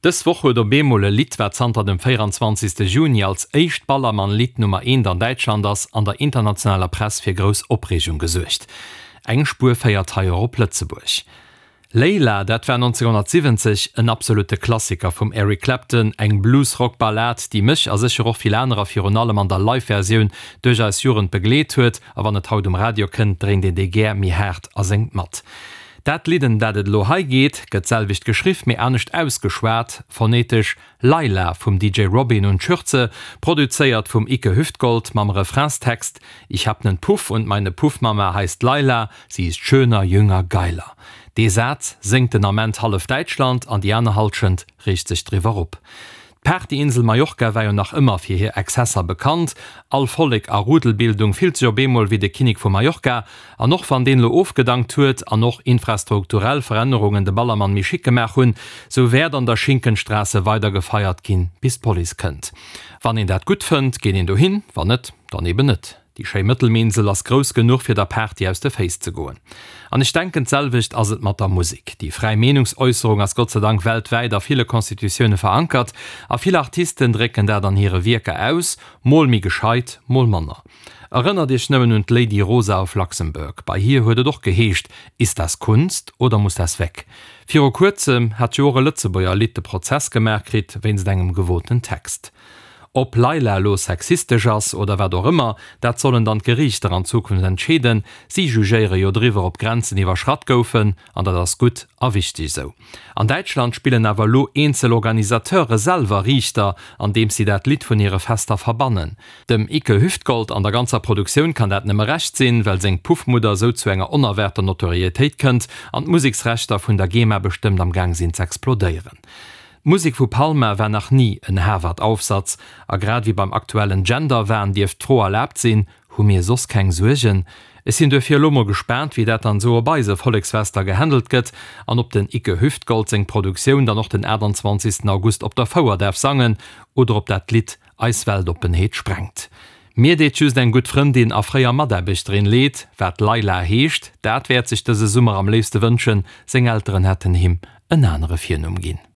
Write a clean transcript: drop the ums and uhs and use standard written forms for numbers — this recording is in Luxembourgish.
Dës Woch huet op eemol e Lidd, wat zanter dem 24. Juni als éischt Ballermann-Lidd Nummer eent an Däitschland ass, an der internationaler Press fir grouss Opreegung gesuergt. Eng Spuer féiert hei och op Lëtzebuerg. Layla, dat war 1970 en absolutte Klassiker vum Eric Clapton, eng Blues-Rock-Ballad, déi mech a sécher och vill anerer virun allem an der Live-Versioun duerch eis Jugend begleet huet, a wann et haut um Radio kënnt, dréint een déi gär méi haart a séngt mat. Dat Lidd, ëm dat et elo hei geet, gëtt d'selwecht geschriff, mee anescht ausgeschwat, phonetesch, Layla vum DJ Robin und Schürze, produzéiert vum Icke Hüftgold, mam Refrainstext Ich hab nen Puff und meine Puffmama heißt Layla, sie ist schöner, jünger, geiler. Dee Saz séngt den Ament hallef Däitschland an déi aner Hallschent reegt sech driwwer op. D'Partyinsel Mallorca war jo nach ëmmer fir hir Exzesser bekannt. All Vollek a Rudelbildung fillt sech op eemol wéi de Kinnek vu Mallorca. An och wann deen elo ofgedankt huet an och infrastrukturell Verännerungen de Ballermann méi chic gemaach hunn, sou wäert an der Schinkenstraße weider gefeiert ginn, bis d'Police kënnt. Wann een dat gutt fënnt, geet een dohin, wann net, dann eben net. Déi schéi Mëttelmeerinsel ass grouss genuch fir der Party aus de Féiss ze goen. An ech denken d'selwecht ass et mat der Musek. Déi fräi Meenungsäusserung ass Gott sei Dank weltwäit a ville Constitutioune verankert a vill Artisten drécken dat an hire Wierker aus, mol méi gescheit, mol manner. Erënnert iech nëmmen un d'Lady Rosa of Luxembourg, bei hir huet et och geheescht, Ist das Kunst oder muss das weg? Viru kuerzem hat jo och e Lëtzebuerger Lidd de Prozess gemaach kritt wéinst engem gewoten Text. Ob Layla elo sexistesch ass oder wat och ëmmer, dat sollen dann d'Geriichter an Zukunft entscheeden. Si jugéiere jo driwwer, ob Grenzen iwwerschratt goufen, an dat ass gutt a wichteg esou. An Däitschland spillen awer elo eenzel Organisateure selwer Riichter, andeems si dat Lidd vun hire Fester verbannen. Dem Icke Hüftgold an der ganzer Produktioun kann dat nëmme Recht sinn, well seng Puffmudder esou zu enger onerwaarter Notorietéit kënnt an d'Museksrechter vun der GEMA bestëmmt am Gaang sinn z'explodéieren. D'Musek vu Palma war nach ni en Harvard-Aufsatz, a grad ewéi beim aktuellen Gender-Wahn dierft d'Fro erlaabt sinn, Hu mir soss keng Suergen? Ech sinn duerfir elo mol gespaant, wéi dat dann esou op eise Volleksfester gehandelt gëtt an ob den Icke Hüftgold seng Produktioun dann och den 28. August op der Fouer däerf sangen oder ob dat Lidd eis Weltoppenheet sprengt. Mir deet just eng gutt Frëndin a fréier Mataarbechterin leed, wat Leila heescht, dat wäert sech dëse Summer am léifste wënschen, seng Elteren hätten him en anere Virnumm ginn.